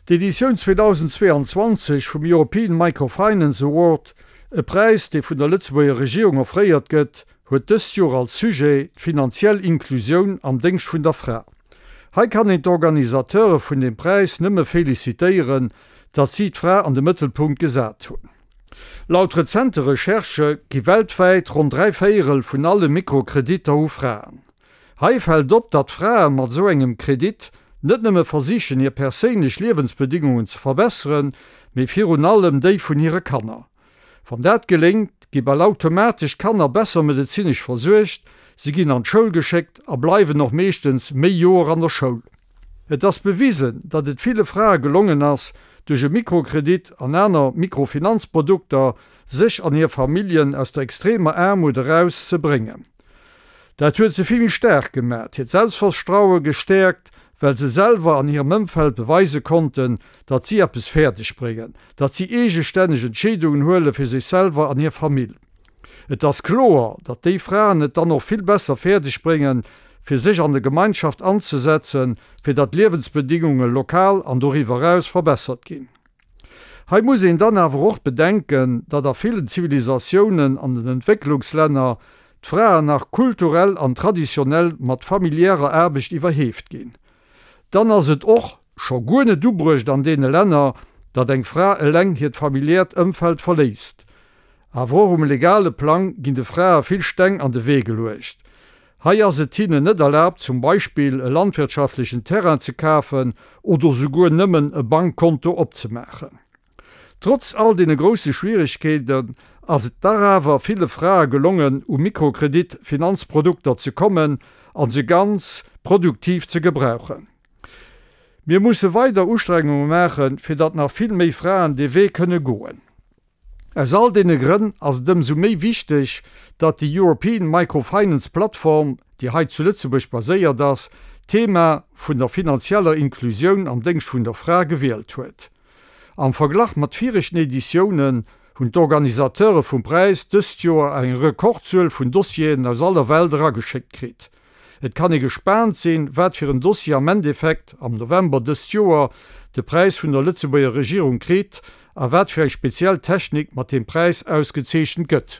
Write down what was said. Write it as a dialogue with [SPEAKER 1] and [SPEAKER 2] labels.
[SPEAKER 1] D'Editioun 2022 vum European Microfinance Award, e Präis, dee vun der Lëtzebuerger Regierung offréiert gëtt, huet dëst Joer als Sujet d'finanziell Inklusioun am Déngscht vun der Fra. Hei kann een d'Organisateure vun deem Präis nëmme felicitéieren, datt si d'Fra an de Mëttelpunkt gesat hunn. Laut rezente Recherchë gi weltwäit ronn 3 Véierel vun alle Mikrokreditter u Fraen. Hei fält op, datt Frae mat esou engem Kredit net nëmme versichen hir perséinlech Liewensbedingungen ze verbesseren, mee virun allem déi vun hire Kanner. Wann dat geléngt, gi bal automatesch d'Kanner besser medezinesch versuergt, si ginn an d'Schoul geschéckt a bleiwen och meeschtens méi Joer an der Schoul. Et ass bewisen, datt et ville Frae gelongen ass, duerch e Mikrokredit an aner Mikrofinanzprodukter sech an hir Familljen aus der extremer Aarmut eraus ze bréngen. Dat huet se vill méi staark gemat, hiert Selbstverstraue gestäerkt, well se selwer an hirem Ëmfeld beweise konnten, datt si eppes fäerdeg bréngen, datt si eegestänneg Entscheedungen huele fir sech selwer an hir Famill. Et ass kloer, datt déi Fraen et dann och vill besser fäerdeg bréngen, fir sech an der Gemeinschaft anzesetzen, fir datt d'Liewensbedingunge lokal an doriwwer eraus verbessert ginn. Hei muss een dann awer och bedenken, datt a villen Zivilisatiounen an den Entwécklungslänner d'Fraen nach kulturell an traditionell mat familiärer Aarbecht iwwerheeft ginn. Dann ass et och scho guer net ubruecht an deene Länner, datt eng Fra eleng hiert familiäert Ëmfeld verléisst. Awer och um legale Plang ginn de Frae vill Steng an de Wee geluecht. Hei ass et hinnen net erlaabt, zum Beispill e landwirtschaftlechen Terrain ze kafen oder souguer nëmmen e Bankkonto opzemaachen. Trotz all deene grousse Schwieregkeeten ass et dach awer ville Frae gelongen, u Mikrokredit-Finanzprodukter ze kommen a se ganz produktiv ze gebrauchen. Mir musse weider Ustrengunge maachen, fir datt nach vill méi Fraen dee Wee kënne goen. Aus all deene Grënn ass et ëmsou méi wichteg, datt déi European Microfinance Platform, déi hei zu Lëtzebuerg baséiert ass, d'Thema vun der finanzieller Inklusioun am Déngscht vun der Fra gewielt huet. Am Verglach mat viregten Editiounen hunn d'Organisateure vum Präis dëst Joer eng Rekordzuel vun Dossieren aus aller Welt erageschéckt kritt. Et kann ee gespaant sinn, wat fir en Dossier am Endeffekt am November dëst Joer de Präis vun der Lëtzebuerger Regierung kritt a wat fir eng speziell Technik mat deem Präis ausgezeechent gëtt.